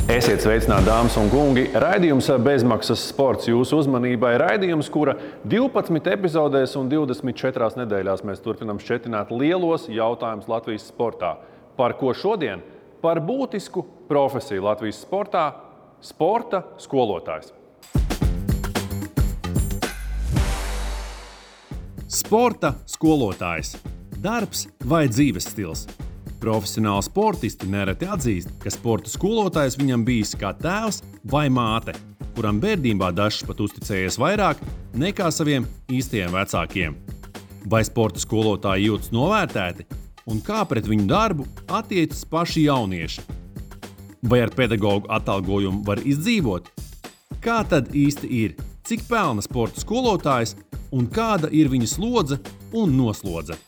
Esiet sveicināti, dāmas un kungi! Raidījums Bezmaksas sports jūsu uzmanībai. Raidījums, kura 12 epizodēs un 24 nedēļās mēs turpinām šķetināt lielos jautājumus Latvijas sportā. Par ko šodien? Par būtisku profesiju Latvijas sportā – sporta skolotājs. Sporta skolotājs. Darbs vai dzīves stils? Profesionāli sportisti nereti atzīst, ka sporta skolotājs viņam bijis kā tēvs vai māte, kuram bērnībā dažs pat uzticējies vairāk nekā saviem īstajiem vecākiem. Vai sporta skolotāji jūtas novērtēti un kā pret viņu darbu attiecas paši jaunieši? Vai ar pedagogu atalgojumu var izdzīvot? Kā tad īsti ir? Cik pelna sporta skolotājs un kāda ir viņa slodze un noslodze?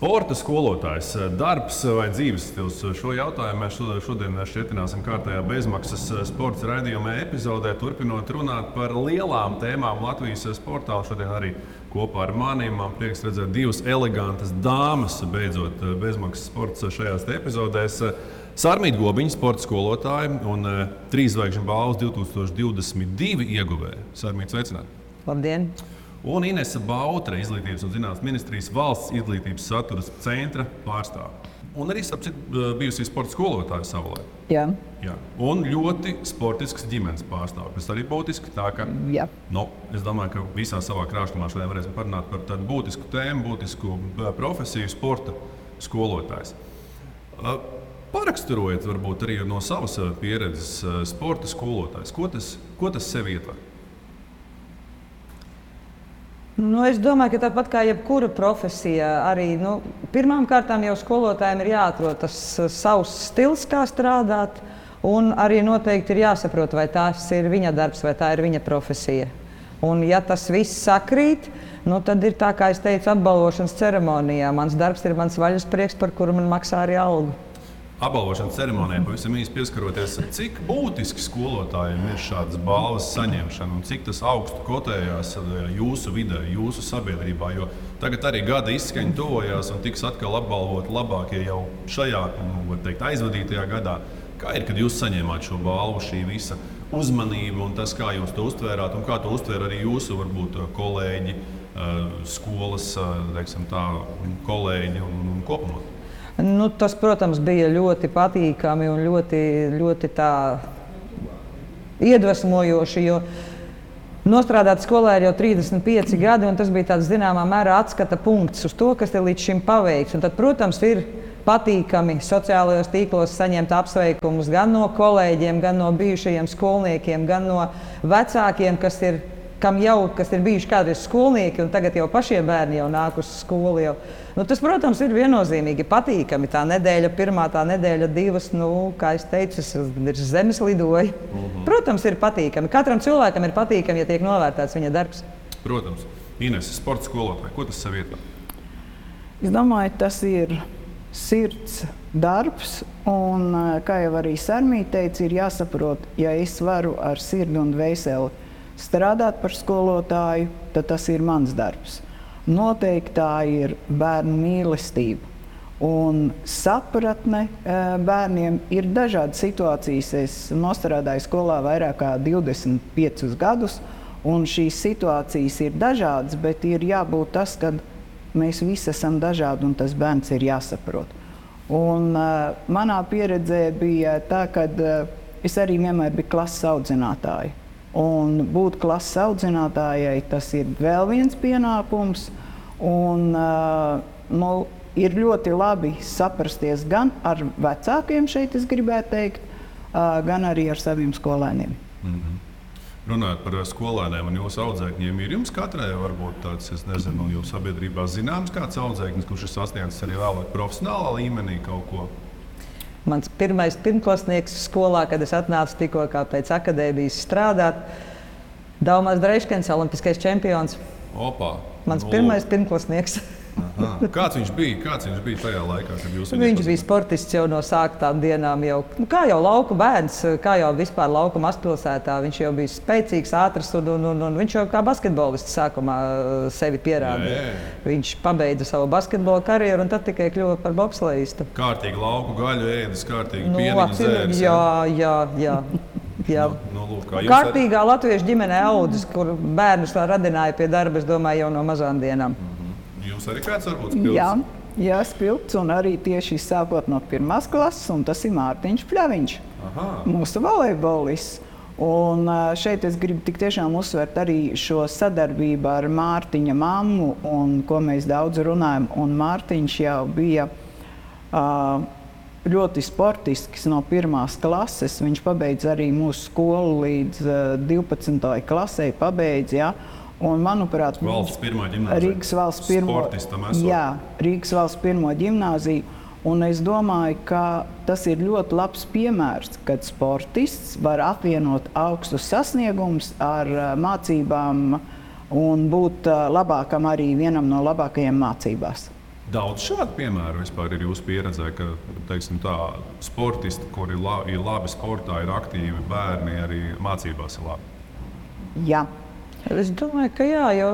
Sporta skolotājs, darbs vai dzīves stils? Šo jautājumu mēs šodien šķietināsim kārtējā bezmaksas sports raidījuma epizodē, turpinot runāt par lielām tēmām Latvijas sportā. Šodien arī kopā ar maniem man prieks redzēt divas elegantas dāmas, beidzot bezmaksas sports šajās epizodēs. Sarmīta Gobiņa, sporta skolotāja un 3 zvaigžņu balvas 2022 ieguvēja. Sarmīta, sveicināti! Labdien! Un Inese Bautre, Izglītības un zinātnes ministrijas valsts izglītības satura centra pārstāve. Un arī bijusi sporta skolotāja savulaik. Jā. Jā. Un ļoti sportisks ģimenes pārstāve. Tas arī būtiski. Tā, ka, es domāju, ka visā savā krāšņumā šodien varēsim parunāt par tādu būtisku tēmu, būtisku profesiju, sporta skolotājs. Paraksturojiet varbūt arī no savas pieredzes sporta skolotājs. Ko tas sev ietver? Es domāju, ka tāpat kā jebkura profesija, arī pirmām kārtām jau skolotājiem ir jāatrod tas savs stils, kā strādāt, un arī noteikti ir jāsaprot, vai tas ir viņa darbs, vai tā ir viņa profesija. Un ja tas viss sakrīt, tad ir tā, kā es teicu, apbalvošanas ceremonijā. Mans darbs ir mans vaļasprieks, par kuru man maksā arī algu. Apbalvošanas ceremonijā pavisam īsi pieskaroties, cik būtiski skolotājiem ir šādas balvas saņemšana un cik tas augstu kotējās jūsu vidē, jūsu sabiedrībā, jo tagad arī gada izskaņa tuvojās un tiks atkal apbalvoti labākie jau šajā, var teikt, aizvadītajā gadā. Kā ir, kad jūs saņēmāt šo balvu, šī visa uzmanība un tas, kā jūs to uztvērāt un kā to uztvēra arī jūsu, varbūt, kolēģi, skolas, teiksim tā, kolēģi un kopumā? Tas, protams, bija ļoti patīkami un ļoti tā iedvesmojoši, jo nostrādāt skolā ir jau 35 gadi, un tas bija tāds zināmā mērā atskata punkts uz to, kas ir līdz šim paveikts. Un tad, protams, ir patīkami sociālajos tīklos saņemt apsveikumus gan no kolēģiem, gan no bijušajiem skolniekiem, gan no vecākiem, kas ir bijuši kādreiz skolnieki, un tagad jau pašie bērni jau nāk uz skolu. Tas, protams, ir viennozīmīgi patīkami. Tā nedēļa pirmā, tā nedēļa divas, kā es teicu, ir zemes lidoja. Protams, ir patīkami. Katram cilvēkam ir patīkami, ja tiek novērtēts viņa darbs. Protams. Inese, sporta skolotāja, ko tas sev ietver? Es domāju, tas ir sirds darbs, un, kā jau arī Sarmīta teica, ir jāsaprot, ja es varu ar sirdi un dvēseli strādāt par skolotāju, tad tas ir mans darbs. Noteikti tā ir bērnu mīlestība un sapratne bērniem. Ir dažādas situācijas. Es nostrādāju skolā vairāk kā 25 gadus, un šīs situācijas ir dažādas, bet ir jābūt tas, ka mēs visi esam dažādi un tas bērns ir jāsaprot. Un manā pieredzē bija tā, ka es arī vienmēr biju klases audzinātāja. Un būt klases audzinātājai, tas ir vēl viens pienākums. Un, ir ļoti labi saprasties gan ar vecākiem, šeit es gribētu teikt, gan arī ar saviem skolēniem. Runājot par skolēniem un jūsu audzēkņiem, ir jums katrai varbūt tāds, es nezinu, jūsu sabiedrībā zināms kāds audzēknis, kurš ir sasniedzis arī vēlāk profesionālā līmenī kaut ko? Mans pirmais pirmklasnieks skolā, kad es atnācu tikko pēc akadēmijas strādāt, Daumās Dreiškens, olimpiskais čempions. Opā. Mans pirmais pirmklasnieks. Aha. Kāds viņš bija tajā laikā, kad jūs Viņš bija sportists jau no sāktām dienām. Kā jau lauku bērns, kā jau vispār lauku mazpilsētā. Viņš jau bija spēcīgs, ātrs un viņš jau kā basketbolists sākumā sevi pierādīja. Viņš pabeidza savu basketbola karjeru un tad tikai kļuva par bobslejistu. Kārtīgi lauku gaļu ēdis, kārtīgi pieniņu zēris. Jā. Kārtīgā latviešu ģimenē audzis, kur bērnus radināja pie darba, es domāju, jau no mazām dienām. Jūs arī kāds varbūt spilts? Jā, spilts un arī tieši sākot no 1. klases, un tas ir Mārtiņš Pļaviņš, mūsu volejbolists. Un šeit es gribu tik tiešām uzsvert arī šo sadarbību ar Mārtiņa mammu, un ko mēs daudz runājam. Un Mārtiņš jau bija ļoti sportisks no 1. klases. Viņš pabeidza arī mūsu skolu līdz 12. klasei pabeidza, ja? Un, manuprāt, valsts pirmā ģimnāzija. Rīgas valsts pirmo ģimnāziju. Un es domāju, ka tas ir ļoti labs piemērs, kad sportists var apvienot augstus sasniegumus ar mācībām un būt labākam arī vienam no labākajiem mācībās. Daudz šādu piemēru vispār ir jūsu pieredzē, ka, teiksim tā, sportisti, kuri ir labi sportā, ir aktīvi bērni, arī mācībās ir labi? Jā. Es domāju, ka jā, jo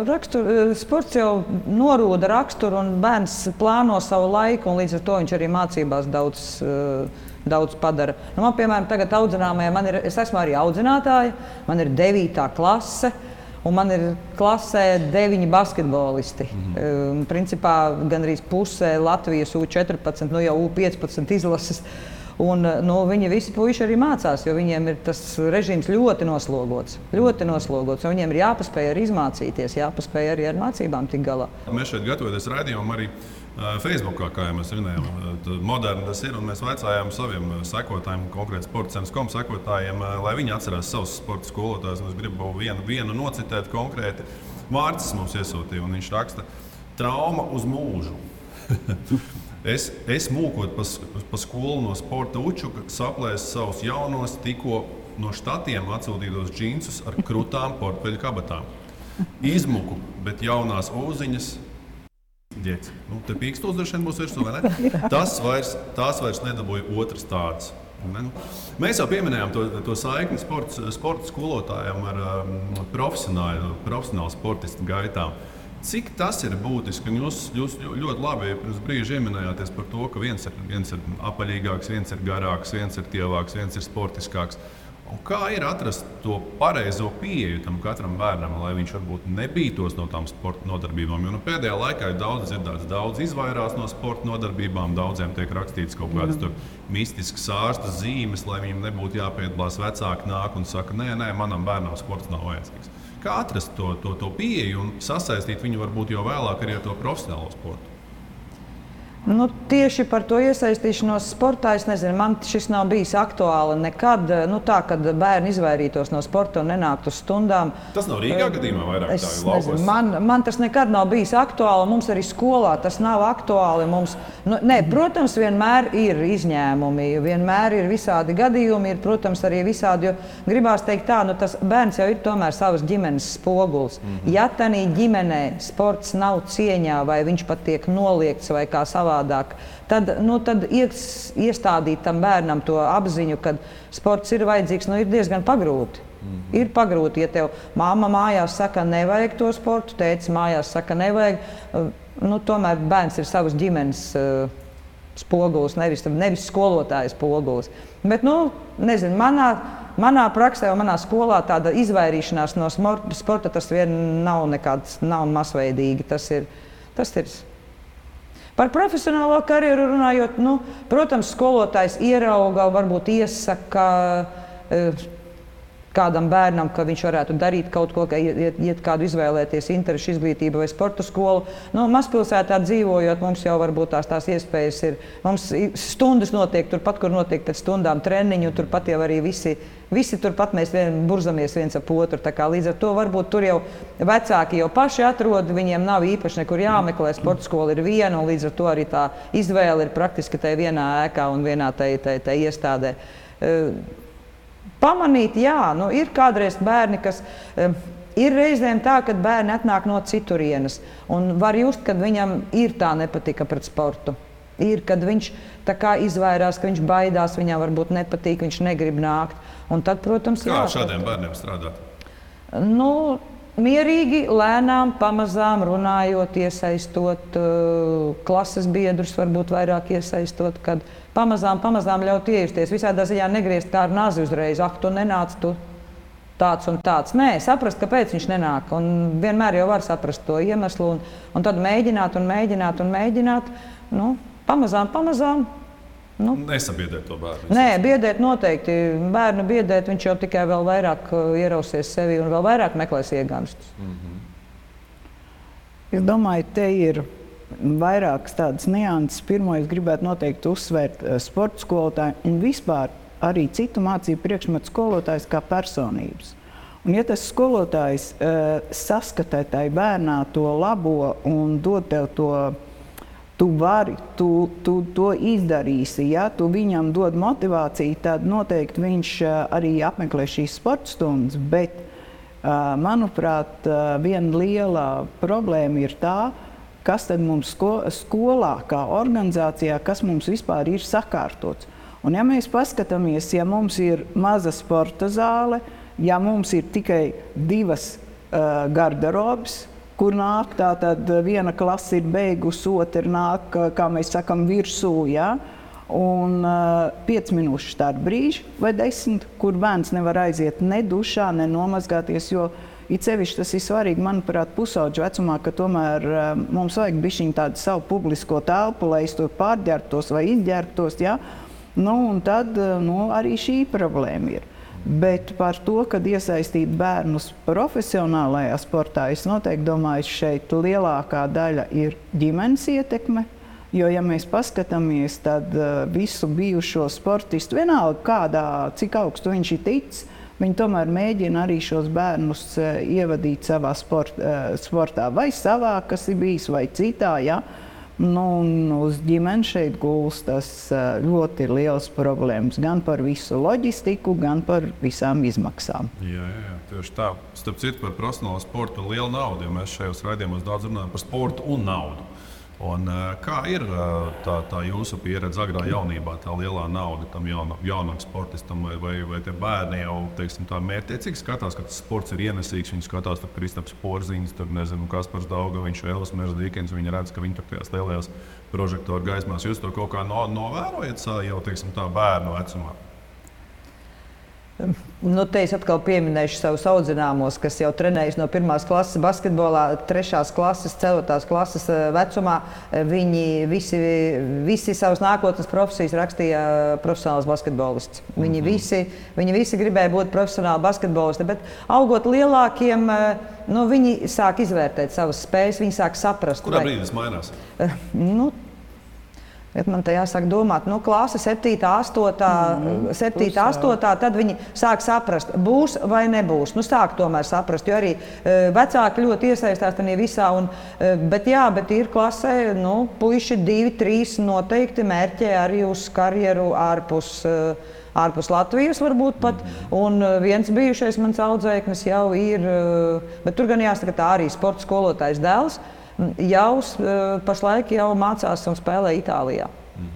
sports jau norūda raksturu un bērns plāno savu laiku, un līdz ar to viņš arī mācībās daudz padara. Man, piemēram, tagad audzināmajā, es esmu arī audzinātāja, man ir 9. klase, un man ir klasē 9 basketbolisti. Principā gandrīz pusē Latvijas U14, jau U15 izlases. Un, viņi visi puiši arī mācās, jo viņiem ir tas režīms ļoti noslogots. Un viņiem ir jāpaspēj arī izmācīties, jāpaspēj arī ar mācībām tik galā. Mēs šeit gatavoties raidījumam arī Facebookā, kā jau mēs runājām, moderni tas ir, un mēs vaicājām saviem sekotājiem, konkrēti sportcentrs.com sekotājiem, lai viņi atcerās savus sporta skolotājus. Es gribu vienu nocitēt konkrēti. Vārds mums iesūtīja, un viņš raksta: trauma uz mūžu. Es mūkot pa skolu no sporta učuka, saplēsu savus jaunos, tikko no štatiem atsūtītos džinsus ar krutām portfeļu kabatām. Izmuku, bet jaunās ūziņas. Ģets. Te pīkstūs droši vien būs virsū, vai ne? Tās vairs nedabūja otras tādas. Mēs jau pieminējām to saikni sporta skolotājiem ar profesionālu sportistu gaitām. Cik tas ir būtiski? Jūs ļoti labi pirms brīža ieminējāties par to, ka viens ir apaļīgāks, viens ir garāks, viens ir tievāks, viens ir sportiskāks. Un kā ir atrast to pareizo pieeju tam katram bērnam, lai viņš varbūt nebītos no tām sporta nodarbībām? Jo pēdējā laikā ir daudz dzirdēts, daudz izvairās no sporta nodarbībām, daudziem tiek rakstīts kaut kādas mistiskas ārsta zīmes, lai viņiem nebūtu jāpiedalās. Vecāki nāk un saka, nē, manam bērnam sports nav vajadzīgs. Kā atrast to pieeju un sasaistīt viņu varbūt jau vēlāk arī ar to profesionālo sportu? Tieši par to iesaistīšanos sportā, es nezinu, man šis nav bijis aktuāli nekad. Tā, kad bērni izvairītos no sporta un nenāktu uz stundām. Tas nav Rīgā gadījumā vairāk tā ir laukos? Man tas nekad nav bijis aktuāli, mums arī skolā tas nav aktuāli. Protams, vienmēr ir izņēmumi, vienmēr ir visādi gadījumi, ir, protams, arī visādi, jo gribās teikt tā, tas bērns jau ir tomēr savas ģimenes spogulis. Ja tanī ģimenē sports nav cieņā vai viņš pat tiek noliegts vai kā savā tad iestādīt tam bērnam to apziņu, ka sports ir vajadzīgs, ir diezgan pagrūti. Ir pagrūti, ja tev mamma mājās saka, nevajag to sportu, tētis mājās saka, nevajag. Tomēr bērns ir savas ģimenes spogulis, nevis skolotāja spogulis. Bet, nezinu, manā praksē un manā skolā tāda izvairīšanās no sporta tas vien nav masveidīgi. Tas ir. Par profesionālo karjeru runājot, protams, skolotājs ierauga, varbūt iesaka kādam bērnam, ka viņš varētu darīt kaut ko, iet kādu izvēlēties interešu izglītību vai sporta skolu. Mazpilsētā dzīvojot, mums jau varbūt tās iespējas ir. Mums stundas notiek turpat, kur notiek pēc stundām treniņu, turpat jau arī visi turpat mēs burzamies viens ap otru. Līdz ar to varbūt tur jau vecāki jau paši atrod, viņiem nav īpaši nekur jāmeklē, sporta skola ir viena, un līdz ar to arī tā izvēle ir praktiski tajā vienā ēkā un vienā tajā iestādē. Pamanīt, jā, ir kādreiz bērni, kas Ir reizēm tā, ka bērni atnāk no citurienes un var just, ka viņam ir tā nepatika pret sportu. Ir, kad viņš tā kā izvairās, ka viņš baidās, viņam varbūt nepatīk, viņš negrib nākt. Un tad, protams, kā ar šādiem bērniem strādāt? Nu, mierīgi, lēnām, pamazām runājot, iesaistot klases biedrus, varbūt vairāk iesaistot, kad pamazām ļaut iejusties. Visādā ziņā negriezt kā ar nazi uzreiz, tu nenāc, tu tāds un tāds. Nē, saprast, kāpēc viņš nenāk. Un vienmēr jau var saprast to iemeslu un tad mēģināt. Nu, pamazām. Nu. Nesabiedēt to bērnu. Nē, biedēt noteikti. Bērnu biedēt, viņš jau tikai vēl vairāk ierausies sevi un vēl vairāk meklēs ieganstus. Es domāju, te ir vairākas tādas nianses. Pirmo es gribētu noteikti uzsvērt sporta skolotāju un vispār arī citu mācību priekšmetu skolotājs kā personības. Un ja tas skolotājs saskatē tai bērnā to labo un dod tev to, tu vari, tu to izdarīsi, ja tu viņam dod motivāciju, tad noteikti viņš arī apmeklē šīs sporta stundas, bet, manuprāt, viena liela problēma ir tā, kas tad mums skolā, kā organizācijā, kas mums vispār ir sakārtots. Un ja mēs paskatāmies, ja mums ir maza sporta zāle, ja mums ir tikai 2 garderobes, kur nāk, tātad viena klase ir beigusi, otra nāk, kā mēs sakam, virsū, ja? Un 5 minūšu starp brīži vai 10, kur bērns nevar aiziet ne dušā, ne nomazgāties, jo it sevišķi tas ir svarīgi, manuprāt, pusaudžu vecumā, ka tomēr mums vajag bišķiņ tādu savu publisko telpu, lai es tur pārģērbtos vai izģērbtos, ja? Nu, un tad arī šī problēma ir. Bet par to, kad iesaistīt bērnus profesionālajā sportā, es noteikti domāju, šeit lielākā daļa ir ģimenes ietekme. Jo, ja mēs paskatāmies, tad visu bijušo sportistu, vienalga kādā, cik augstu viņš ir ticis, viņi tomēr mēģina arī šos bērnus ievadīt savā sportā. Vai savā, kas ir bijis, vai citā, ja? Nu, uz ģimeni šeit gulstas ļoti liels problēmas gan par visu loģistiku, gan par visām izmaksām. Jā, tieši tā. Starp citu, par profesionālo sportu un lielu naudu, jo mēs šajos raidījumos daudz runājam par sportu un naudu. Un, kā ir tā jūsu pieredze agrā jaunībā, tā lielā nauda tam jaunam sportistam, vai tie bērni jau, teiksim, tā mērķtiecīgi skatās, ka tas sports ir ienesīgs, viņi skatās, tur Kristaps Porziņš, tur, nezinu, Kaspars Daugaviņš, Elvis Meždīkens, viņi redz, ka viņi tur tajās lielajās prožektoru gaismās. Jūs to kaut kā novērojat jau, teiksim, tā bērnu vecumā? Nu, te es atkal pieminēšu savus audzināmos, kas jau trenējas no 1. klases basketbolā, 3. klases, 4. klases vecumā. Viņi visi savas nākotnes profesijas rakstīja profesionāls basketbolists. Viņi visi gribēja būt profesionāli basketbolisti, bet augot lielākiem, viņi sāk izvērtēt savas spējas, viņi sāk saprast. Kurā brīdī tas mainās? Man te jāsāk domāt, klase 7, 8, tad viņi sāk saprast, būs vai nebūs. Sāk tomēr saprast, jo arī vecāki ļoti iesaistās tajā visā. Bet ir klasē, puiši 2, 3 noteikti mērķē arī uz karjeru ārpus Latvijas varbūt pat. Un viens bijušais mans audzēknis jau ir, bet tur gan jāsaka tā arī sporta skolotājs dēls. Jau pašlaik mācās un spēlē Itālijā.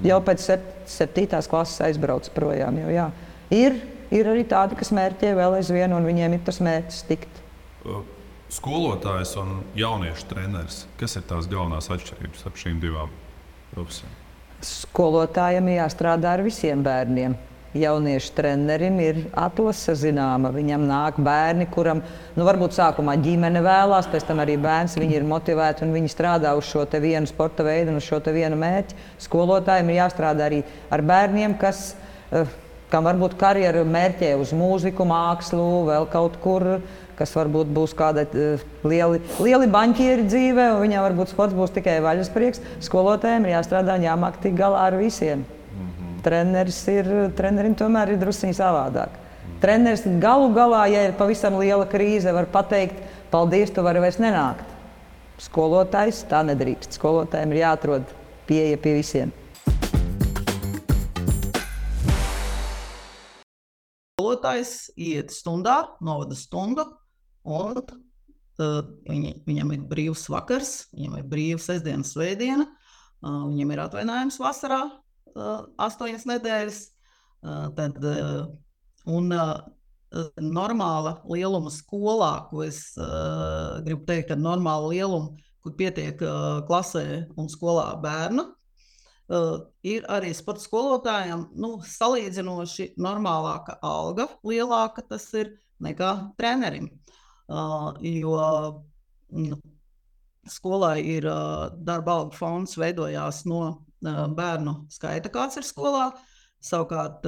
Jau pēc 7. klases aizbrauc projām. Ir arī tādi, kas mērķē vēl aizvien, un viņiem ir tas mērķis tikt. Skolotājs un jauniešu treneris. Kas ir tās galvenās atšķirības ap šīm divām profesijām? Skolotājiem jāstrādā ar visiem bērniem. Jauniešu trenerim ir atlase zināma. Viņam nāk bērni, kuram varbūt sākumā ģimene vēlās, pēc tam arī bērns. Viņi ir motivēti un viņi strādā uz šo te vienu sporta veidu un uz šo te vienu mērķi. Skolotājiem ir jāstrādā arī ar bērniem, kam varbūt karjeru mērķē uz mūziku, mākslu, vēl kaut kur, kas varbūt būs kāda lieli baņķieri dzīvē, un viņam varbūt sports būs tikai vaļasprieks. Skolotājiem ir jāstrādā un jāmāk tik galā ar visiem. Trenerim tomēr ir drusciņi savādāk. Treneris galu galā, ja ir pavisam liela krīze, var pateikt, paldies, tu vari vairs nenākt. Skolotājs tā nedrīkst. Skolotājiem ir jāatrod pieeja pie visiem. Skolotājs iet stundā, novada stundu un viņam ir brīvs vakars, viņam ir brīvs sestdiena, svētdiena, viņam ir atvainājums vasarā 8 nedēļas, un normāla lieluma skolā, ko es gribu teikt, ka normāla lieluma, kur pietiek klasē un skolā bērnu, ir arī sporta skolotājiem salīdzinoši normālāka alga, lielāka tas ir nekā trenerim. Jo skolai ir darba algu fonds veidojās no bērnu skaita, kāds ir skolā. Savukārt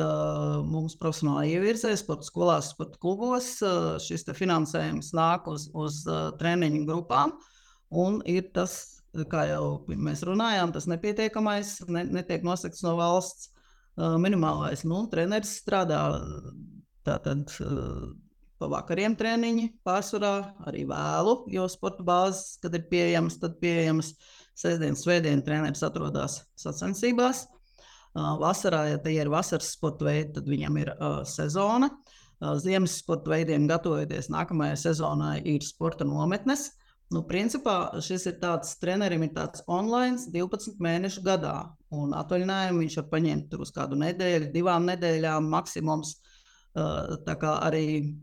mums profesionāli ievirzē sporta skolās, sporta klubos šis finansējums nāk uz treniņu grupām un ir tas, kā jau mēs runājām, tas nepietiekamais, netiek nosakts no valsts minimālais. Treneris strādā tātad pa vakariem treniņi pārsvarā, arī vēlu, jo sporta bāzes, kad ir pieejamas, tad pieejamas sestdien, svētdien treneris atrodas sacensībās. Vasarā, ja tie ir vasaras sporta veidi, tad viņam ir sezona. Ziemas sporta veidiem gatavojoties nākamajai sezonai ir sporta nometnes. Principā šis ir tāds, trenerim ir tāds online 12 mēnešu gadā, un atvaļinājumu viņš var paņemt tur uz kādu nedēļu, 2 nedēļām maksimums. Tā kā arī,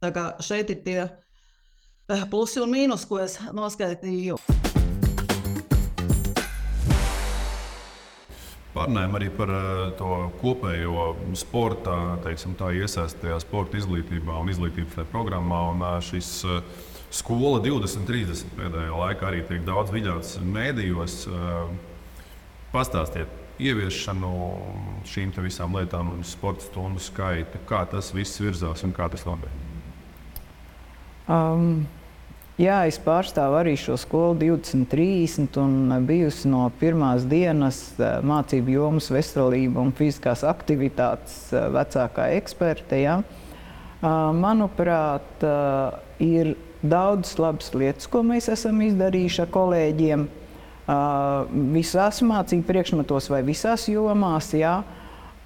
tā kā šeit ir tie plusi un mīnus, ko es noskaitīju. Pārnājam arī par to kopējo sporta, teiksim tā, iesaistajā sporta izglītībā un izglītības tajā programmā, un šis Skola 2030 pēdējā laikā arī tiek daudz viļauts mēdījos. Pastāstiet ieviešanu šīm te visām lietām un sporta stundu skaitu, kā tas viss virzās un kā tas notiek? Jā, es pārstāvu arī šo skolu 2030 un bijusi no pirmās dienas mācību jomas veselība un fiziskās aktivitātes vecākā eksperte. Ja? Manuprāt, ir daudz labas lietas, ko mēs esam izdarījuši ar kolēģiem visās mācību priekšmetos vai visās jomās. Jā.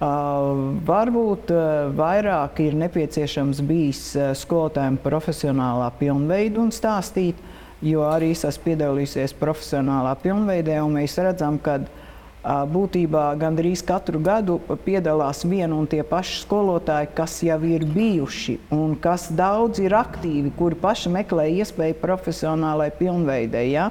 Varbūt vairāk ir nepieciešams bijis skolotājiem profesionālā pilnveidu un stāstīt, jo arī es esmu piedalījusies profesionālā pilnveidē, un mēs redzam, ka būtībā gandrīz katru gadu piedalās vien un tie paši skolotāji, kas jau ir bijuši un kas daudz ir aktīvi, kuri paši meklē iespēju profesionālai pilnveidei. Ja?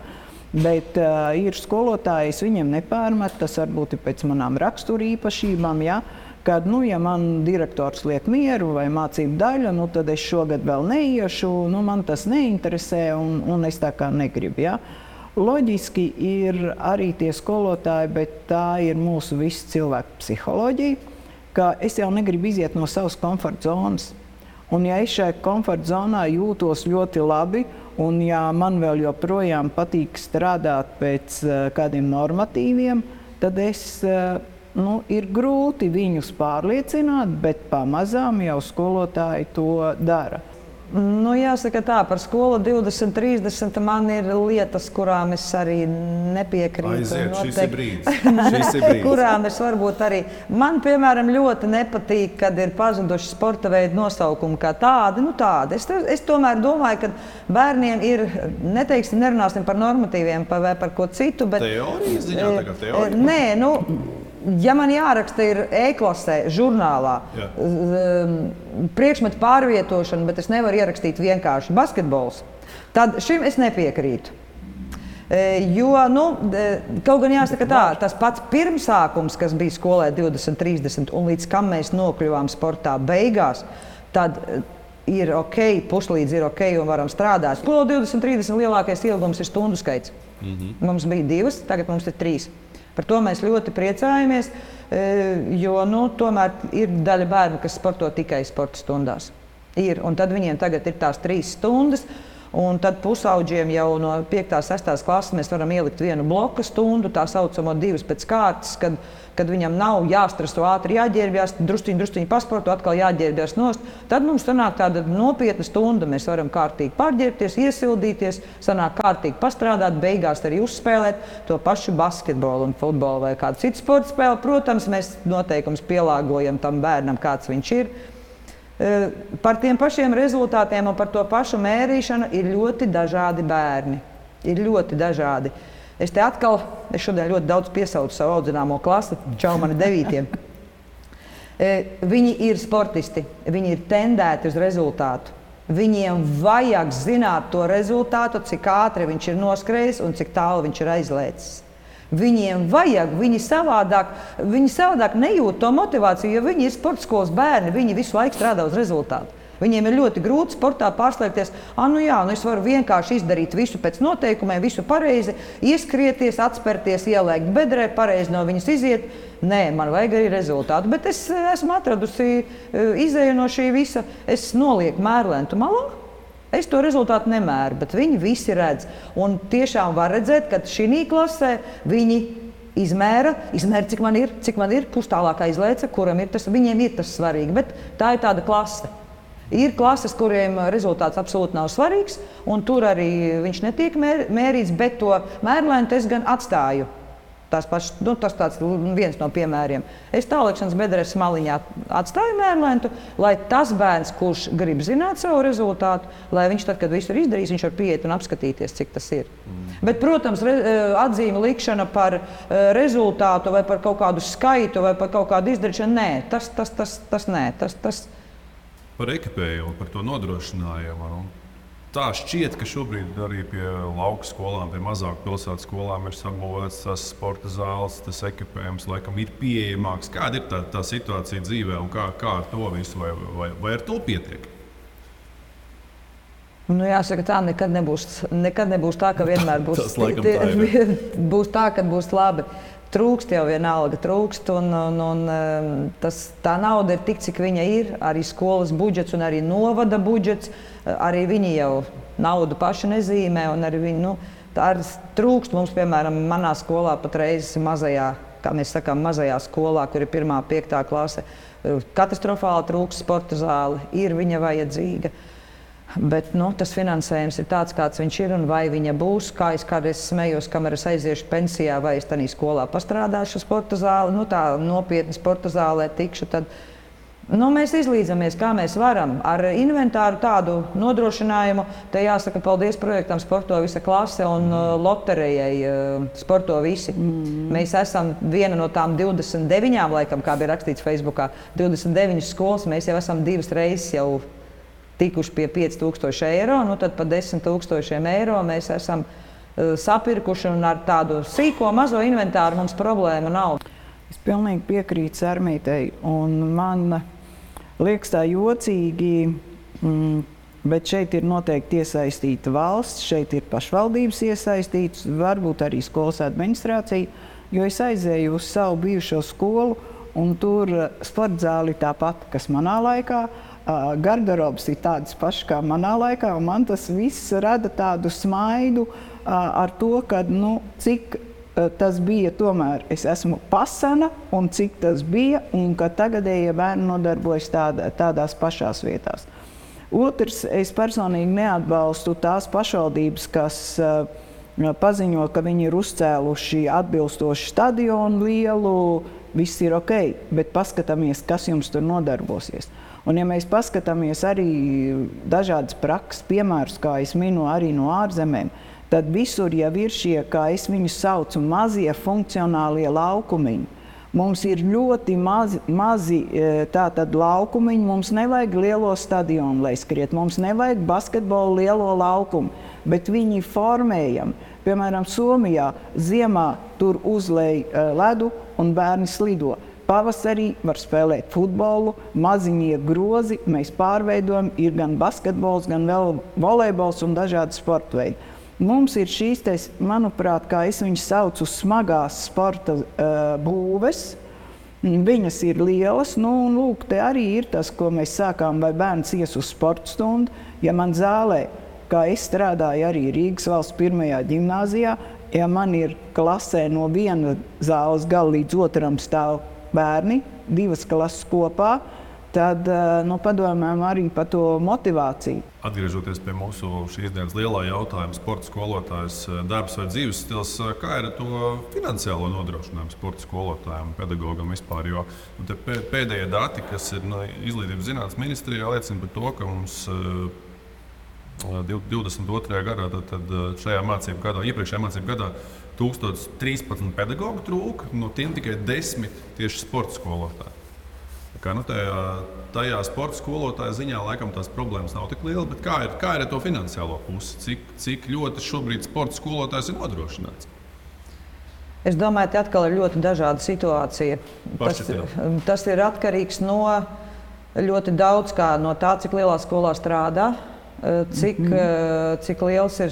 Bet ir skolotāji, es viņiem nepārmetu, tas varbūt ir pēc manām rakstura īpašībām, ja? Kad, ja man direktors liek mieru vai mācību daļa, tad es šogad vēl neiešu, man tas neinteresē un es tā kā negribu. Ja? Loģiski ir arī tie skolotāji, bet tā ir mūsu visu cilvēku psiholoģija, ka es jau negribu iziet no savas komforta zonas. Un ja es šajā komforta zonā jūtos ļoti labi, un ja man vēl joprojām patīk strādāt pēc kādiem normatīviem, tad ir grūti viņus pārliecināt, bet pamazām jau skolotāji to dara. Jāsaka tā, par skolu 2030 man ir lietas, kurām es arī nepiekrītu. Aiziet, šis ir brīdis. Kurām es varbūt arī. Man, piemēram, ļoti nepatīk, kad ir pazuduši sporta veidu nosaukumi kā tādi. Es tomēr domāju, ka bērniem ir, nerunāsim par normatīviem vai par ko citu, bet... Teorijas ziņā tagad teorija? Nē, ja man jāraksta ir e-klasē, žurnālā, priekšmetu pārvietošana, bet es nevaru ierakstīt vienkārši basketbols, tad šim es nepiekrītu. Jo, kaut gan jāsaka tā, tas pats pirmsākums, kas bija skolē 2030 un līdz kam mēs nokļuvām sportā beigās, tad ir ok, puslīdz ir ok un varam strādāt. Skola 2030 lielākais ilgums ir stundu skaits. Mums bija 2, tagad mums ir 3. Par to mēs ļoti priecājamies, jo tomēr ir daļa bērnu, kas sporto tikai sporta stundās. Un tad viņiem tagad ir tās 3 stundas, un tad pusaudžiem jau no 5. 6. klases mēs varam ielikt 1 bloka stundu, tā saucamo 2 pēc kārtas, kad viņam nav jāstreso, ātri jāģērbjās, drusciņi pasporto, atkal jāģērbjās nost. Tad mums sanāk tāda nopietna stunda, mēs varam kārtīgi pārģērbties, iesildīties, sanāk kārtīgi pastrādāt, beigās arī uzspēlēt to pašu basketbolu un futbolu vai kādu citu sporta spēli. Protams, mēs noteikums pielāgojam tam bērnam, kāds viņš ir. Par tiem pašiem rezultātiem un par to pašu mērīšanu ir ļoti dažādi bērni. Ir ļoti dažādi. Es šodien ļoti daudz piesaucu savu audzināmo klasi, čau mani 9. Viņi ir sportisti, viņi ir tendēti uz rezultātu. Viņiem vajag zināt to rezultātu, cik ātri viņš ir noskrējis un cik tālu viņš ir aizlēcis. Viņiem vajag, viņi savādāk nejūt to motivāciju, jo viņi ir sporta skolas bērni, viņi visu laiku strādā uz rezultātu. Viņiem ir ļoti grūti sportā pārslēgties, es varu vienkārši izdarīt visu pēc noteikumiem, visu pareizi, ieskrieties, atspērties, ielēkt bedrē, pareizi no viņas iziet. Nē, man vajag arī rezultātu, bet es esmu atradusi izēju no šī visa, es nolieku mērlentu malā. Es to rezultātu nemēru, bet viņi visi redz. Un tiešām var redzēt, ka šī klasē viņi izmēra, cik man ir, pustālāk aizlēca, kuram ir tas, viņiem ir tas svarīgi, bet tā ir tāda klase. Ir klases, kuriem rezultāts absolūti nav svarīgs, un tur arī viņš netiek mērīts, bet to mērlentu es gan atstāju. Tas tāds viens no piemēriem. Es tālēkšanas bedres maliņā atstāju mērlentu, lai tas bērns, kurš grib zināt savu rezultātu, lai viņš tad, kad visu ir izdarījis, viņš var pieiet un apskatīties, cik tas ir. Bet, protams, atzīme likšana par rezultātu vai par kaut kādu skaitu vai par kaut kādu izdarīšanu, nē, tas nē. Par ekipējumu, par to nodrošinājumu. Tā šķiet, ka šobrīd arī pie lauku skolām, pie mazāku pilsētu skolām ir sabūvēts tas sporta zāles, tas ekipējums, laikam ir pieejamāks. Kāda ir tā situācija dzīvē un kā ar to visu, vai ar to pietiek? Jāsaka, tā nekad nebūs tā, ka vienmēr būs Tas laikam tā ir. Būs tā, kad būs labi. Trūkst jau vienalga, un tā nauda ir tik, cik viņa ir, arī skolas budžets un arī novada budžets, arī viņi jau naudu paši nezīmē, un arī viņi, tā arī trūkst mums, piemēram, manā skolā patreiz mazajā, kā mēs sakām, mazajā skolā, kur ir 1. 5. klase, katastrofāli trūkst sporta zāli, ir viņa vajadzīga. Bet tas finansējums ir tāds, kāds viņš ir, un vai viņa būs. Kā es kādreiz smējos, kamēr es aiziešu pensijā, vai es tādā skolā pastrādāšu sporta zāli, tā nopietni sporta zālē tikšu, tad mēs izlīdzamies, kā mēs varam. Ar inventāru tādu nodrošinājumu, te jāsaka paldies projektam Sporto visa klase un loterijai Sporto visi. Mēs esam viena no tām 29, laikam, kā bija rakstīts Facebookā, 29 skolas, mēs jau esam 2 reizes jau tikuši pie 5000 eiro, tad pa 10 000 eiro mēs esam sapirkuši, un ar tādu sīko mazo inventāru mums problēma nav. Es pilnīgi piekrītu Sarmītei, un man liekas tā jocīgi, bet šeit ir noteikti iesaistīta valsts, šeit ir pašvaldības iesaistītas, varbūt arī skolas administrācija, jo es aizēju uz savu bijušo skolu, un tur sporta zāli tāpat, kas manā laikā. Garderobs ir tādas pašas kā manā laikā, un man tas viss rada tādu smaidu ar to, ka, cik tas bija tomēr. Es esmu pasena, un cik tas bija, un ka tagadējie bērni nodarbojas tādās pašās vietās. Otrs, es personīgi neatbalstu tās pašvaldības, kas paziņo, ka viņi ir uzcēluši atbilstoši stadionu lielu, viss ir ok, bet paskatāmies, kas jums tur nodarbosies. Un ja mēs paskatāmies arī dažādas prakses piemērus, kā es minu arī no ārzemēm, tad visur jau ir šie, kā es viņus saucu, mazie funkcionālie laukumiņi. Mums ir ļoti mazi tātad laukumiņi, mums nevajag lielo stadionu, lai skriet, mums nevajag basketbolu lielo laukumu, bet viņi formējam. Piemēram, Somijā ziemā tur uzlej ledu un bērni slido. Pavasarī var spēlēt futbolu, maziņie grozi, mēs pārveidojam, ir gan basketbols, gan vēl volejbols un dažādi sporta veidi. Mums ir šīs, manuprāt, kā es viņus saucu, smagās sporta būves. Viņas ir lielas, un lūk, te arī ir tas, ko mēs sākām, vai bērns ies uz sporta stundu. Ja man zālē, kā es strādāju arī Rīgas valsts 1. ģimnāzijā, ja man ir klasē no viena zāles gala līdz otram stāv bērni, 2 klases kopā, tad padomājam arī par to motivāciju. Atgriežoties pie mūsu šīs dienas lielā jautājuma, sporta skolotājs darbs vai dzīves stils, kā ir ar to finansiālo nodrošinājumu sporta skolotājiem, pedagogam vispār? Jo pēdējie dati, kas ir Izglītības zinātnes ministrijā, liecina par to, ka mums 22. gadā, tad šajā mācību gadā, iepriekšējā mācību gadā 1013 pedagogu trūka, no tiem tikai 10 tieši sporta skolotāji. Tajā sporta skolotāja ziņā laikam tās problēmas nav tik lielas, bet kā ir ar to finansiālo pusi? Cik ļoti šobrīd sporta skolotājs ir nodrošināts? Es domāju, ka atkal ir ļoti dažāda situācija. Tas ir atkarīgs no ļoti daudz kā no tā, cik lielā skolā strādā, cik liels ir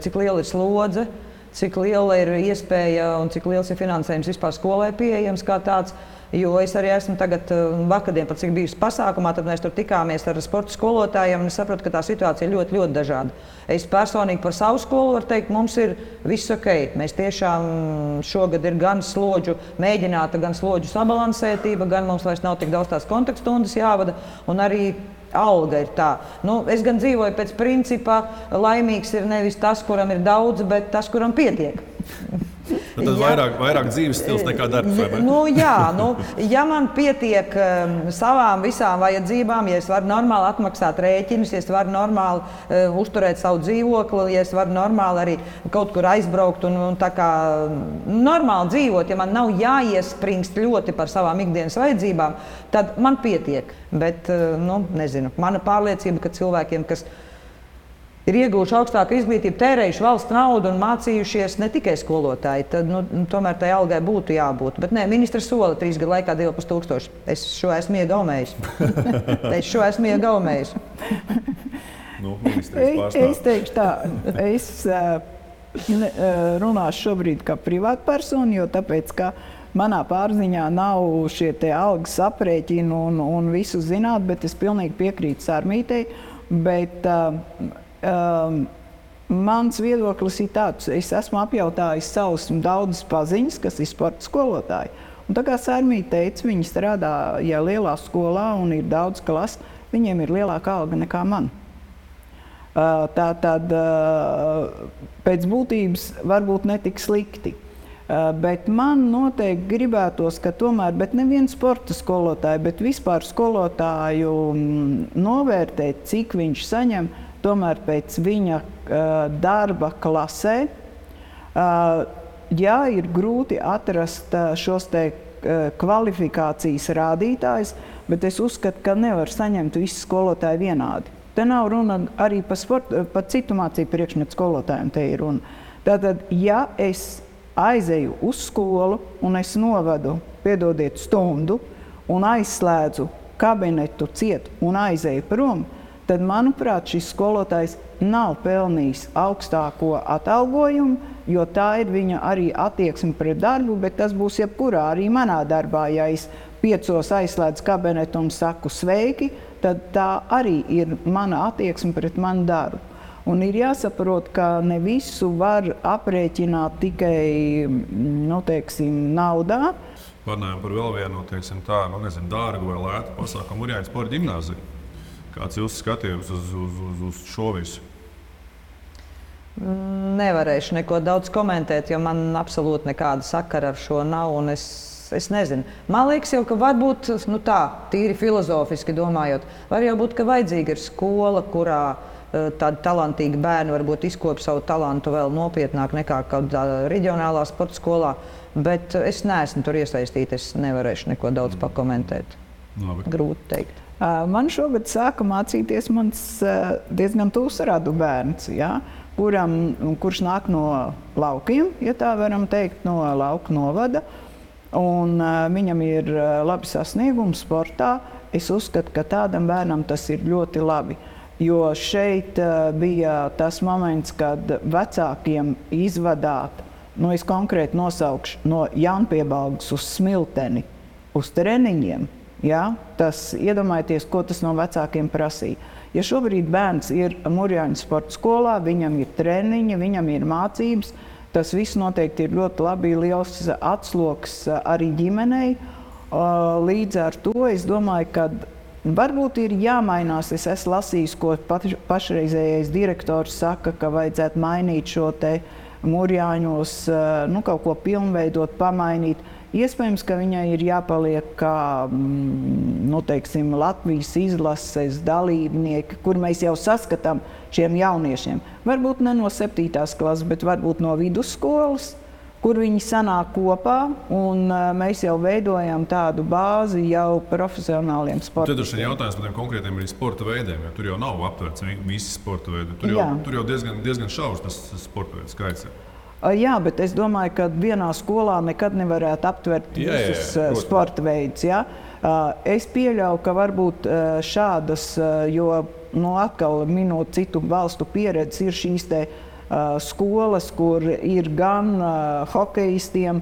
cik liela ir slodze, cik liela ir iespēja un cik liels ir finansējums vispār skolai pieejams kā tāds. Jo es arī esmu tagad vakardien, pat cik bijusi pasākumā, tad mēs tur tikāmies ar sporta skolotājiem un es saprotu, ka tā situācija ir ļoti, ļoti dažāda. Es personīgi par savu skolu varu teikt, mums ir viss ok. Mēs tiešām šogad ir gan slodžu mēģināta, gan slodžu sabalansētība, gan mums vairs nav tik daudz tās kontaktstundas jāvada un arī alga ir tā. Es gan dzīvoju pēc principa, laimīgs ir nevis tas, kuram ir daudz, bet tas, kuram pietiek. Tad vairāk dzīves stils nekā darbs, vai ne? Ja man pietiek savām visām vajadzībām, ja es varu normāli atmaksāt rēķinus, ja es varu normāli uzturēt savu dzīvokli, ja es varu normāli arī kaut kur aizbraukt un tā kā normāli dzīvot, ja man nav jāiespringst ļoti par savām ikdienas vajadzībām, tad man pietiek. Bet, nezinu, mana pārliecība, ka cilvēkiem, kas ir ieguvuši augstāku izglītību, tērējuši valsts naudu un mācījušies ne tikai skolotāji, tad tomēr tai algai būtu jābūt. Bet nē, ministrs sola 3 gadu laikā 2500. Es šo esmu iegaumējis. Es teikšu tā, es runāšu šobrīd kā privātpersona, jo tāpēc, ka manā pārziņā nav šie te algas aprēķini un visu zināt, bet es pilnīgi piekrītu Sarmītei, bet mans viedoklis ir tāds, es esmu apjautājis savus daudzus paziņas, kas ir sporta skolotāji. Un tā kā Sarmīte teica, viņi strādā lielā skolā un ir daudz klases, viņiem ir lielāka alga nekā man. Tātad pēc būtības varbūt netik slikti. Bet man noteikti gribētos, ka tomēr, bet nevienu sporta skolotāju, bet vispār skolotāju novērtēt, cik viņš saņem, tomēr pēc viņa darba klasē. Ja ir grūti atrast šos te kvalifikācijas rādītājus, bet es uzskatu, ka nevar saņemt visi skolotāji vienādi. Te nav runa arī par citu mācību priekšmetu skolotājiem te ir runa. Tātad, ja es aizēju uz skolu un es novadu, piedodiet, stundu un aizslēdzu kabinetu ciet un aizēju prom, tad, manuprāt, šis skolotājs nav pelnījis augstāko atalgojumu, jo tā ir viņa arī attieksme pret darbu, bet tas būs jebkurā arī manā darbā. Ja es 5 aizslēdzu kabinetu un saku sveiki, tad tā arī ir mana attieksme pret manu darbu. Un ir jāsaprot, ka ne visu var aprēķināt tikai, naudā. Parunājam par vēl vienu, dārgu vai lētu pasākumu Urjāņu sporta ģimnāziju. Kāds ir jūsu skatījums uz šo visu? Nevarēšu neko daudz komentēt, jo man absolūti nekāda sakara ar šo nav. Un es nezinu. Man liekas, jau, ka varbūt tīri filozofiski domājot, var jau būt, ka vajadzīga ir skola, kurā tādi talantīgi bērni varbūt izkopj savu talantu vēl nopietnāk nekā kādā reģionālā sporta skolā. Bet es neesmu tur iesaistīta, es nevarēšu neko daudz pakomentēt. Grūti teikt. Man šogad sāka mācīties mans diezgan tūs radu bērns, kurš nāk no laukiem, ja tā varam teikt, no lauku novada. Un viņam ir labi sasniegumi sportā. Es uzskatu, ka tādam bērnam tas ir ļoti labi. Jo šeit bija tas moments, kad vecākiem izvadāt, es konkrēti nosaukšu, no Jaunpiebalgas uz Smilteni, uz treniņiem. Tas iedomājieties, ko tas no vecākiem prasīja. Ja šobrīd bērns ir Murjāņu sporta skolā, viņam ir treniņi, viņam ir mācības, tas viss noteikti ir ļoti labi, liels atsloks arī ģimenei. Līdz ar to es domāju, ka varbūt ir jāmainās. Es esmu lasījis, ko pašreizējais direktors saka, ka vajadzētu mainīt šo te Mūrjāņos, kaut ko pilnveidot, pamainīt. Iespējams, ka viņai ir jāpaliek kā Latvijas izlases dalībnieki, kur mēs jau saskatām šiem jauniešiem. Varbūt ne no 7. klases, bet varbūt no vidusskolas, kur viņi sanāk kopā, un mēs jau veidojam tādu bāzi jau profesionāliem sportistiem. Tad ir šis jautājums par tiem konkrētiem arī sporta veidiem, jo tur jau nav aptverts visi sporta veidi. Tur jau diezgan šaurs tas sporta veidu skaits. Jā, bet es domāju, ka vienā skolā nekad nevarētu aptvert visus sporta veidus. Ja? Es pieļauju, ka varbūt šādas, jo atkal minot citu valstu pieredzi, ir šīs te skolas, kur ir gan hokejistiem,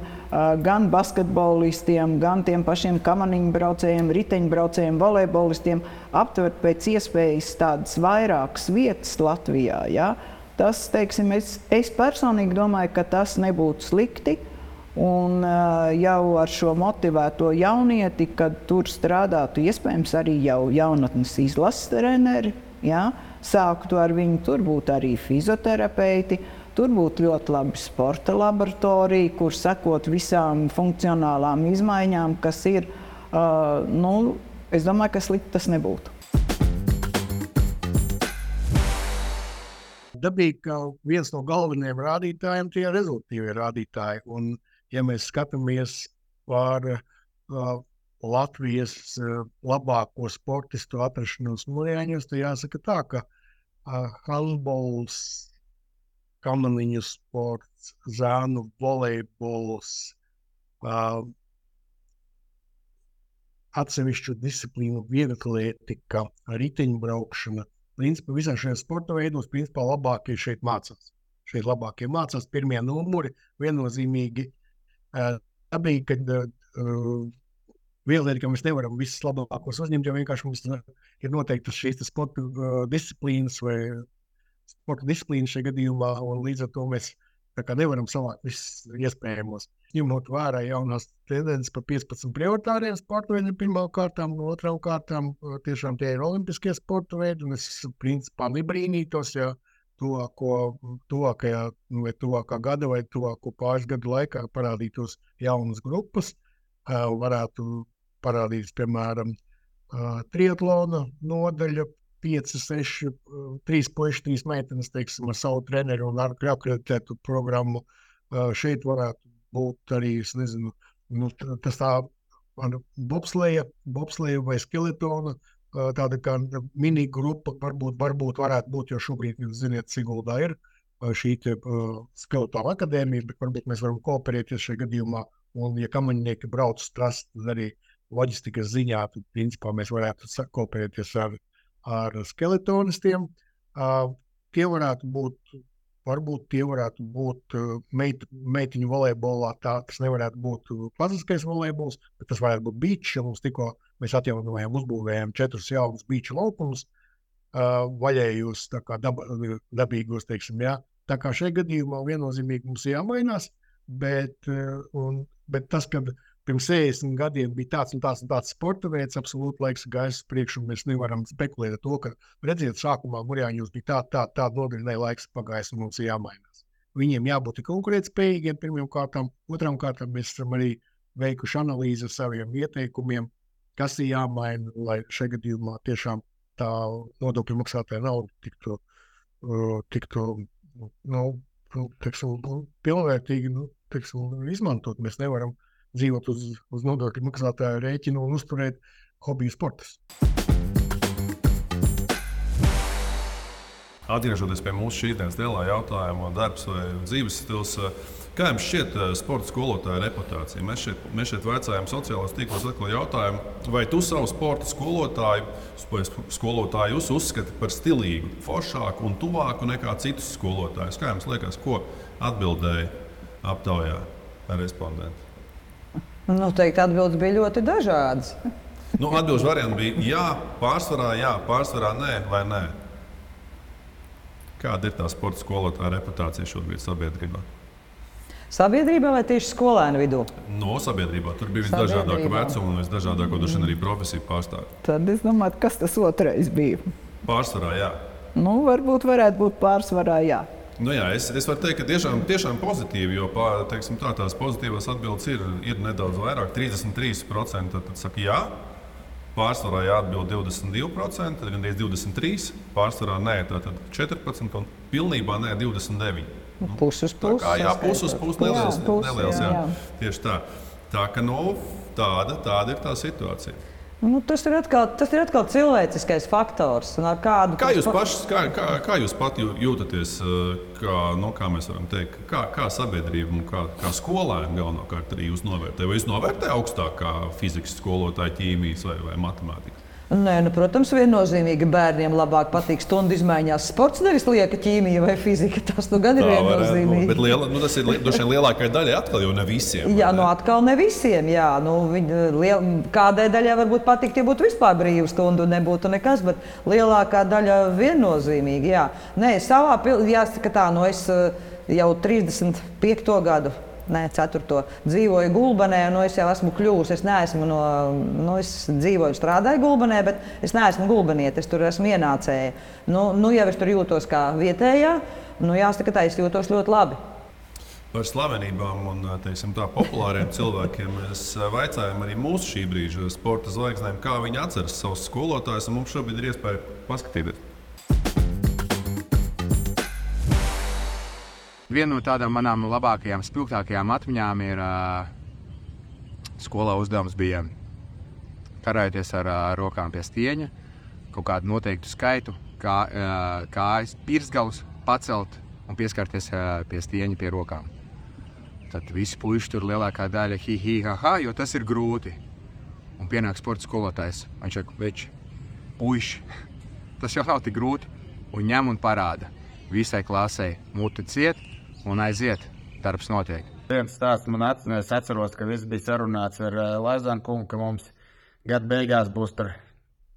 gan basketbolistiem, gan tiem pašiem kamaniņbraucējiem, riteņbraucējiem, volejbolistiem aptvert pēc iespējas tādas vairākas vietas Latvijā. Ja? Tas, teiksim, es personīgi domāju, ka tas nebūtu slikti. Un jau ar šo motivēto jaunieti, kad tur strādātu iespējams arī jau jaunatnes izlases treneri, ja? Sāktu ar viņu, tur būtu arī fizioterapeiti, tur būtu ļoti labi sporta laboratorija, kur sekot visām funkcionālām izmaiņām, kas ir, es domāju, ka slikti tas nebūtu. Dabīgi, ka viens no galvenajiem rādītājiem tie ir rezultīvie rādītāji. Un, ja mēs skatāmies par Latvijas labāko sportistu atrašanos Mūrjāņos, tad jāsaka tā, ka handbols, kamaniņu sports, zānu volejbols, atsevišķu disciplīnu vieglatlētika, riteņbraukšana. Principā visā šajā sporta veidos labākie šeit mācās. Šeit labākie mācās pirmie numuri, viennozīmīgi. Dabīgi, kad vienlaicīgi, ka mēs nevaram visus labākos uzņemt, jo vienkārši mums ir noteiktas šīs sporta disciplīnas vai sporta disciplīnas šajā gadījumā, un līdz ar to mēs nevaram savākt visus iespējamos. Ņemot vērā jaunās tendences par 15 prioritāriem sporta veidiem pirmām kārtām, otrām kārtām tiešām tie ir olimpiskie sporta veidi, un es principā nebrīnītos, ja tuvākā gada vai tuvāko pāris gadu laikā parādītos jaunas grupas, varētu parādīties, piemēram, triatlona nodaļa, 5, 6, 3 puiši, 3 meitenes, teiksim, ar savu treneru un ar akreditētu programmu. Šeit varētu būt arī, es nezinu, tas tā bobsleja vai skeletona, tāda kā mini grupa varbūt varētu būt, jo šobrīd, jūs ziniet, Siguldā ir šī skeletona akadēmija, bet varbūt mēs varam kooperēties šajā gadījumā, un ja kamaņnieki brauc uz trasi, tad arī loģistikas ziņā, tad principā mēs varētu kooperēties ar skeletonistiem. Tie varētu būt meitiņu volejbolā, tas nevarētu būt klasiskais volejbols, bet tas varētu būt beach, ja mums tikko mēs atjaunojām, uzbūvējām 4 jaunus beach laukumus, vaļējos, tā kā dabīgos, teiksim, jā. Tā kā šajā gadījumā viennozīmīgi mums jāmainās, bet tas, kad pirms 60 gadiem bija tāds un tāds sporta veids, absolūti laiks gājis priekš, un mēs nevaram spekulēt ar to, ka, redziet, sākumā Mūrjāņos bija tāda nodaļa, laiks pagājis, un mums ir jāmainās. Viņiem jābūt konkurētspējīgiem pirmajām kārtām, otrām kārtām mēs esam arī veikuši analīzi ar saviem ieteikumiem, kas ir jāmaina, lai šajā gadījumā tiešām tā nodokļu maksātāja nauda tiktu pilnvērtīgi izmantot. Mēs nevaram dzīvot uz nodokļu maksātāju rēķinu un uzturēt hobiju sportus. Atgriežoties pie mūsu šīs dienas lielā jautājuma, darbs vai dzīves stils, kā jums šķiet sporta skolotāja reputācija? Mēs šeit vaicājam sociālajos tīklos atkal jautājumu, vai tu savu sporta skolotāju uzskati par stilīgu, foršāku un tuvāku nekā citus skolotājus? Kā jums liekas, ko atbildēja aptaujā respondenti? Noteikti atbildes bija ļoti dažādas. Atbildes varianti bija jā, pārsvarā nē vai nē. Kāda ir tā sporta skolotāja reputācija šobrīd sabiedrībā? Sabiedrībā vai tieši skolēnu vidū? No sabiedrībā. Tur bija visdažādākā vecuma un visdažādāko arī profesiju pārstāvji. Tad es domāju, kas tas otrais bija. Pārsvarā, jā. Nu, varētu būt pārsvarā, jā. Nu jā, es varu teikt, ka tiešām pozitīvi, jo teiksim, tās pozitīvās atbildes ir nedaudz vairāk. 33% tad saka jā, pārsvarā jāatbild 22%, tad gandrīz 23%, pārsvarā nē, tātad 14% un pilnībā nē 29%. Puses puses. Jā, puses neliels, jā. Tieši tā. Tā ka tāda ir tā situācija. Nu, tas ir atkal cilvēciskais faktors. Kā jūs pat jūtaties, kā mēs varam teikt, kā sabiedrība un kā skolēni galvenokārt arī jūs novērtē? Vai jūs novērtē augstāk kā fizikas skolotāji, ķīmijas vai matemātikas? Nē, protams, viennozīmīgi bērniem labāk patīk stundu izmaiņās sports, nevis lieka ķīmija vai fizika. Tas gan ir viennozīmīgi. Bet tas ir droši vien lielākai daļai atkal jau ne visiem. Jā, atkal ne visiem. Jā. Kādai daļai varbūt patikt, ja būtu vispār brīva stunda un nebūtu nekas, bet lielākā daļa viennozīmīgi. Jā. Nē, jāsaka tā, es jau 35. gadu. 4. dzīvoju Gulbenē, un es jau esmu kļuvusi. Es neesmu es dzīvoju un strādāju Gulbenē, bet es neesmu gulbeniete, es tur esmu ienācēja. Jau es tur jūtos kā vietējā, jāsaka tā, es jūtos ļoti labi. Par slavenībām un populāriem cilvēkiem mēs vaicājām arī mūsu šī brīža sporta zvaigznēm, kā viņi atceras savus skolotājus, un mums šobrīd ir iespēja paskatīties. Viena no tādām manām labākajām, spilgtākajām atmiņām ir skolā uzdevums bija karājoties ar rokām pie stieņa, kaut kādu noteiktu skaitu, kājas pirksgalus pacelt un pieskarties pie stieņa pie rokām. Tad visi puiši tur lielākā daļa ha, jo tas ir grūti. Un pienāk sporta skolotājs, viņš saka, veči, puiši, tas jau nav tik grūti, un ņem un parāda. Visai klasei muti ciet un aiziet, darbs notiek. Viens stāsts man atceros, es atceros, ka viss bija sarunāts ar Laizānu kungu, ka mums gada beigās būs tur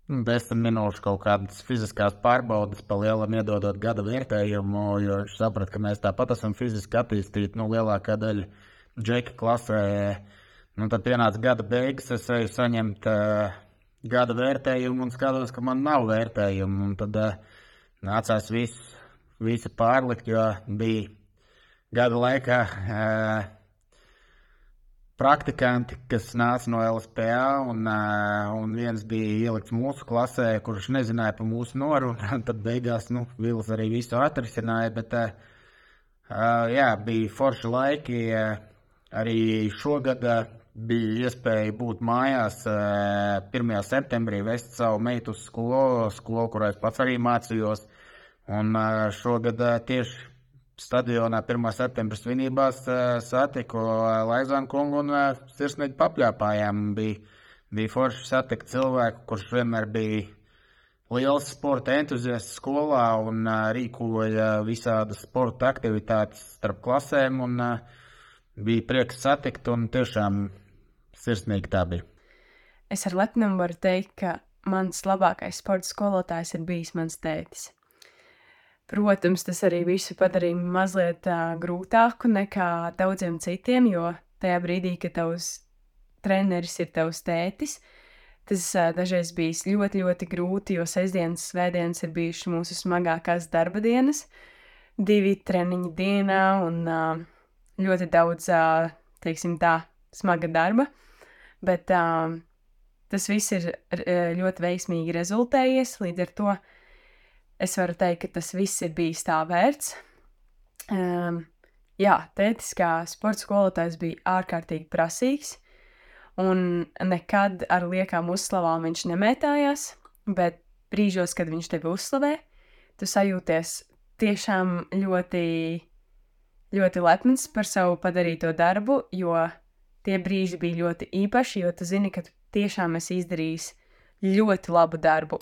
10 minūšu kaut kādas fiziskās pārbaudes pa lielam iedodot gada vērtējumu, jo viņš saprat, ka mēs tāpat esam fiziski attīstīti, lielākā daļa džeka klasē. Tad pienāca gada beigas, es eju saņemt gada vērtējumu un skatos, ka man nav vērtējumu. Un tad nācās visi pārlikt, jo bija gada laikā praktikanti, kas nāca no LSPA, un viens bija ielikts mūsu klasē, kurš nezināja par mūsu norunu. Tad beigās Vils arī visu atrisināja, bet bija forši laiki. Arī šogad bija iespēja būt mājās 1. septembrī, vest savu meitu uz skolu, kurā es pats arī mācījos. Un šogad tieši stadionā 1. septembra svinībās satiku Laizānu kungu un sirsnīgi papļāpājām. Bija forši satikt cilvēku, kurš vienmēr bija liels sporta entuziasts skolā un rīkoja visādas sporta aktivitātes starp klasēm. Un bija prieks satikt un tiešām sirsnīgi tā bija. Es ar lepnumu varu teikt, ka mans labākais sporta skolotājs ir bijis mans tētis. Protams, tas arī visu padarīja mazliet grūtāku nekā daudziem citiem, jo tajā brīdī, kad tavs treneris ir tavs tētis, tas dažreiz bijis ļoti, ļoti grūti, jo sestdienas, svētdienas ir bijušas mūsu smagākās darba dienas, 2 treniņi dienā un ļoti daudz, teiksim tā, smaga darba, bet tas viss ir ļoti veiksmīgi rezultējies, līdz ar to es varu teikt, ka tas viss ir bijis tā vērts. Tētis kā sporta skolotājs bija ārkārtīgi prasīgs, un nekad ar liekām uzslavām viņš nemētājās, bet brīžos, kad viņš tevi uzslavē, tu sajūties tiešām ļoti, ļoti lepns par savu padarīto darbu, jo tie brīži bija ļoti īpaši, jo tu zini, ka tu tiešām esi izdarījis ļoti labu darbu.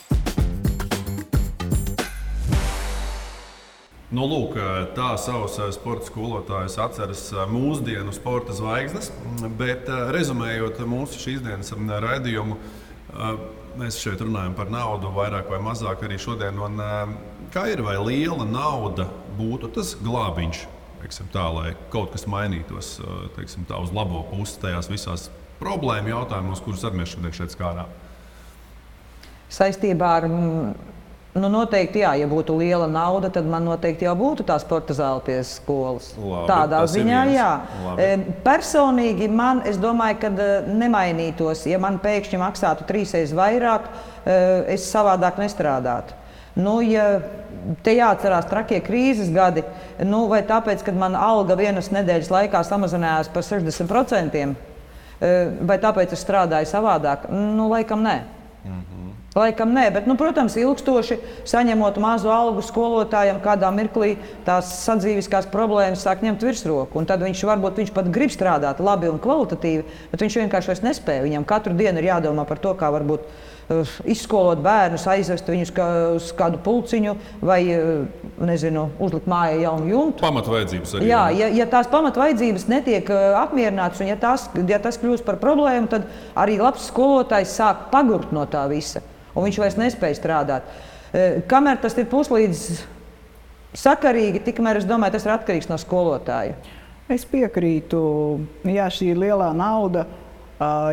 Lūk, tā savus sporta skolotājus atceras mūsdienu sporta zvaigznes, bet rezumējot mūsu šīs dienas raidījumu, mēs šeit runājam par naudu vairāk vai mazāk arī šodien. Un, kā ir, vai liela nauda būtu tas glābiņš teiksim tā, lai kaut kas mainītos, teiksim tā, uz labo pusi tajās visās problēmu jautājumos, kurus arī mēs šodien šeit skārām? Saistībā ar, noteikti, jā, ja būtu liela nauda, tad man noteikti jau būtu tā sporta zāle pie skolas. Labi, tādā tas ir ziņā, viens. jā. Labi. Personīgi es domāju, ka nemainītos, ja man pēkšņi maksātu 3 reizes vairāk, es savādāk nestrādātu. Ja te jāatcerās trakie krīzes gadi, vai tāpēc, kad mana alga vienas nedēļas laikā samazinājās par 60%, vai tāpēc es strādāju savādāk, laikam nē. Laikam nē, bet, protams, ilgstoši saņemot mazu algu skolotājam, kādā mirklī tās sadzīviskās problēmas sāk ņemt virsroku. Un tad viņš pat grib strādāt labi un kvalitatīvi, bet viņš vienkārši vairs nespēja. Viņam katru dienu ir jādomā par to, kā varbūt izskolot bērnus, aizvest viņus uz kādu pulciņu vai, uzlikt mājā jaunu jumtu. Pamatvajadzības arī. Jā, ja tās pamatvajadzības netiek apmierinātas un ja tas kļūst par problēmu, tad arī labs skolotājs sāk pagurt no tā visa. Un viņš vairs nespēja strādāt. Kamēr tas ir puslīdz sakarīgi, tikmēr es domāju, tas ir atkarīgs no skolotāja. Es piekrītu, jā, šī lielā nauda,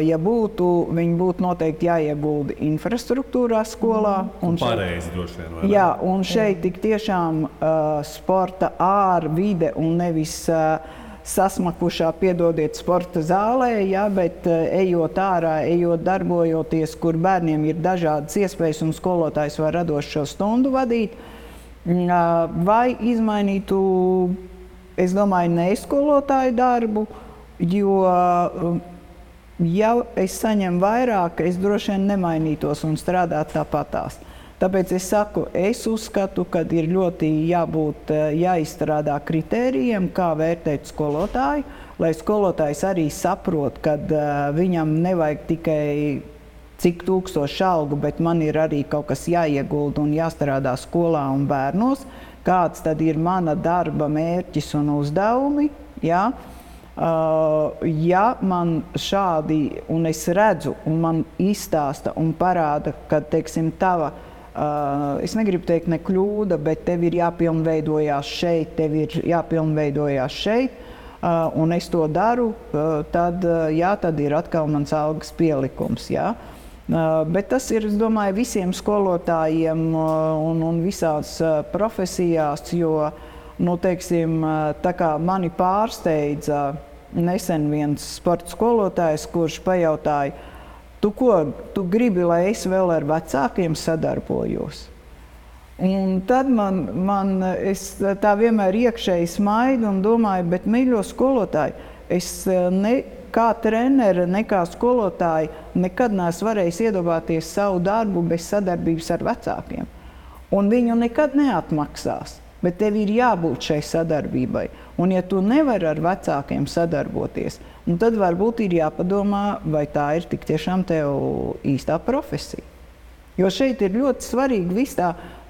ja būtu, viņi būtu noteikti jāiegulda infrastruktūrā skolā. Pareizi droši vien, vai ne? Jā, un šeit tik tiešām sporta ārvide un nevis sasmakušā, piedodiet, sporta zālē, ja, bet ejot ārā, darbojoties, kur bērniem ir dažādas iespējas un skolotājs var radoši šo stundu vadīt, vai izmainītu, es domāju, neskolotāju darbu, jo, ja es saņemu vairāk, es droši vien nemainītos un strādātu tāpatās. Tāpēc es saku, es uzskatu, ka ir ļoti jāizstrādā kritērijiem, kā vērtēt skolotāju, lai skolotājs arī saprot, ka viņam nevajag tikai cik tūkstoši algu, bet man ir arī kaut kas jāiegulda un jāstrādā skolā un bērnos, kāds tad ir mana darba mērķis un uzdevumi. Ja? Ja man šādi, un es redzu, un man izstāsta un parāda, ka, teiksim, tava es negribu teikt ne kļūda, bet tev ir jāpilnveidojās šeit, un es to daru, tad ir atkal mans algas pielikums. Jā. Bet tas ir, es domāju, visiem skolotājiem un visās profesijās, jo, teiksim, tā kā mani pārsteidza nesen viens sporta skolotājs, kurš pajautāja, Tu gribi, lai es vēl ar vecākiem sadarbojos? Un tad es tā vienmēr iekšēji smaidu un domāju, bet, mīļo skolotāji, es ne kā trenere, ne kā skolotāji nekad neesmu varējis iedomāties savu darbu bez sadarbības ar vecākiem. Un viņu nekad neatmaksās, bet tev ir jābūt šai sadarbībai. Un ja tu nevari ar vecākiem sadarboties, tad varbūt ir jāpadomā, vai tā ir tik tiešām tev īstā profesija. Jo šeit ir ļoti svarīgi viss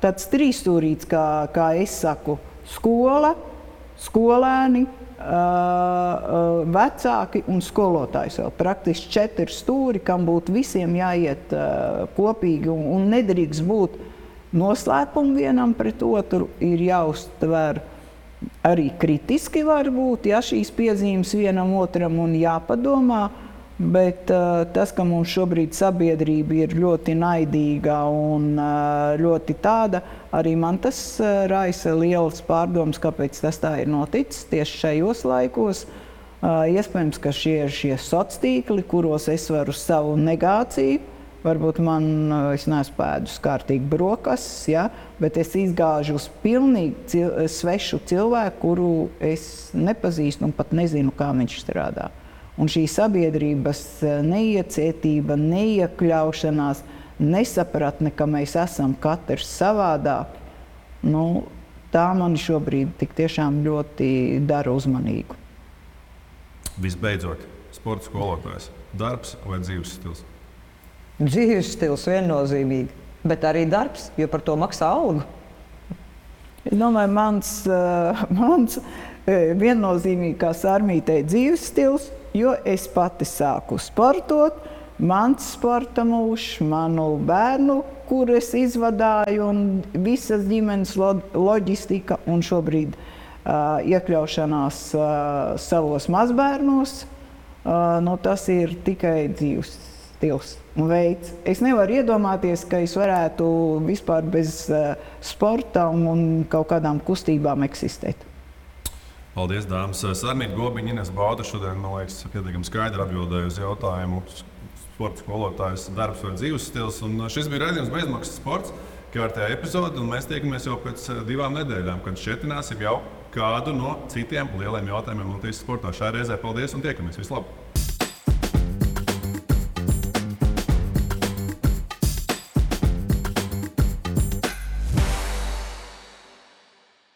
tāds trīsstūrīts, kā es saku, skola, skolēni, vecāki un skolotājs vēl. Praktiski 4 stūri, kam būtu visiem jāiet kopīgi un nedrīkst būt noslēpumi vienam pret otru, ir jāuztver arī kritiski varbūt, ja šīs piezīmes vienam otram un jāpadomā, bet tas, ka mums šobrīd sabiedrība ir ļoti naidīga un ļoti tāda, arī man tas raisa lielas pārdomas, kāpēc tas tā ir noticis tieši šajos laikos. Iespējams, ka šie ir šie sociāli tīkli, kuros es varu savu negāciju. Varbūt es neesmu pēdus kārtīgi brokastis, ja, bet es izgāžu uz pilnīgi svešu cilvēku, kuru es nepazīstu un pat nezinu, kā viņš strādā. Un šī sabiedrības neiecietība, neiekļaušanās, nesapratne, ka mēs esam katrs savādāk, tā mani šobrīd tik tiešām ļoti dara uzmanīgu. Visbeidzot, sporta skolotājs. Darbs vai dzīves stils? Dzīves stils viennozīmīgi, bet arī darbs, jo par to maksā algu. Es domāju, mans viennozīmīgi, kā Sarmītei, dzīves stils, jo es pati sāku sportot, mans sporta mūžs, manu bērnu, kur es izvadāju, un visas ģimenes loģistika, un šobrīd iekļaušanās savos mazbērnos, tas ir tikai dzīves stils un veids. Es nevaru iedomāties, ka es varētu vispār bez sporta un kaut kādām kustībām eksistēt. Paldies, dāmas. Sarmīta Gobiņa, Ines Bauda šodien, man liekas, pietiekami skaidri atbildēja uz jautājumu sporta skolotājs darbs vai dzīves stils. Un šis bija raidījums Bezmaksas sports, kārtējā epizode, un mēs tiekamies jau pēc 2 nedēļām, kad šķietināsim jau kādu no citiem lieliem jautājumiem Latvijas sportā. Šā reizē paldies un tiekamies. Vislabāk!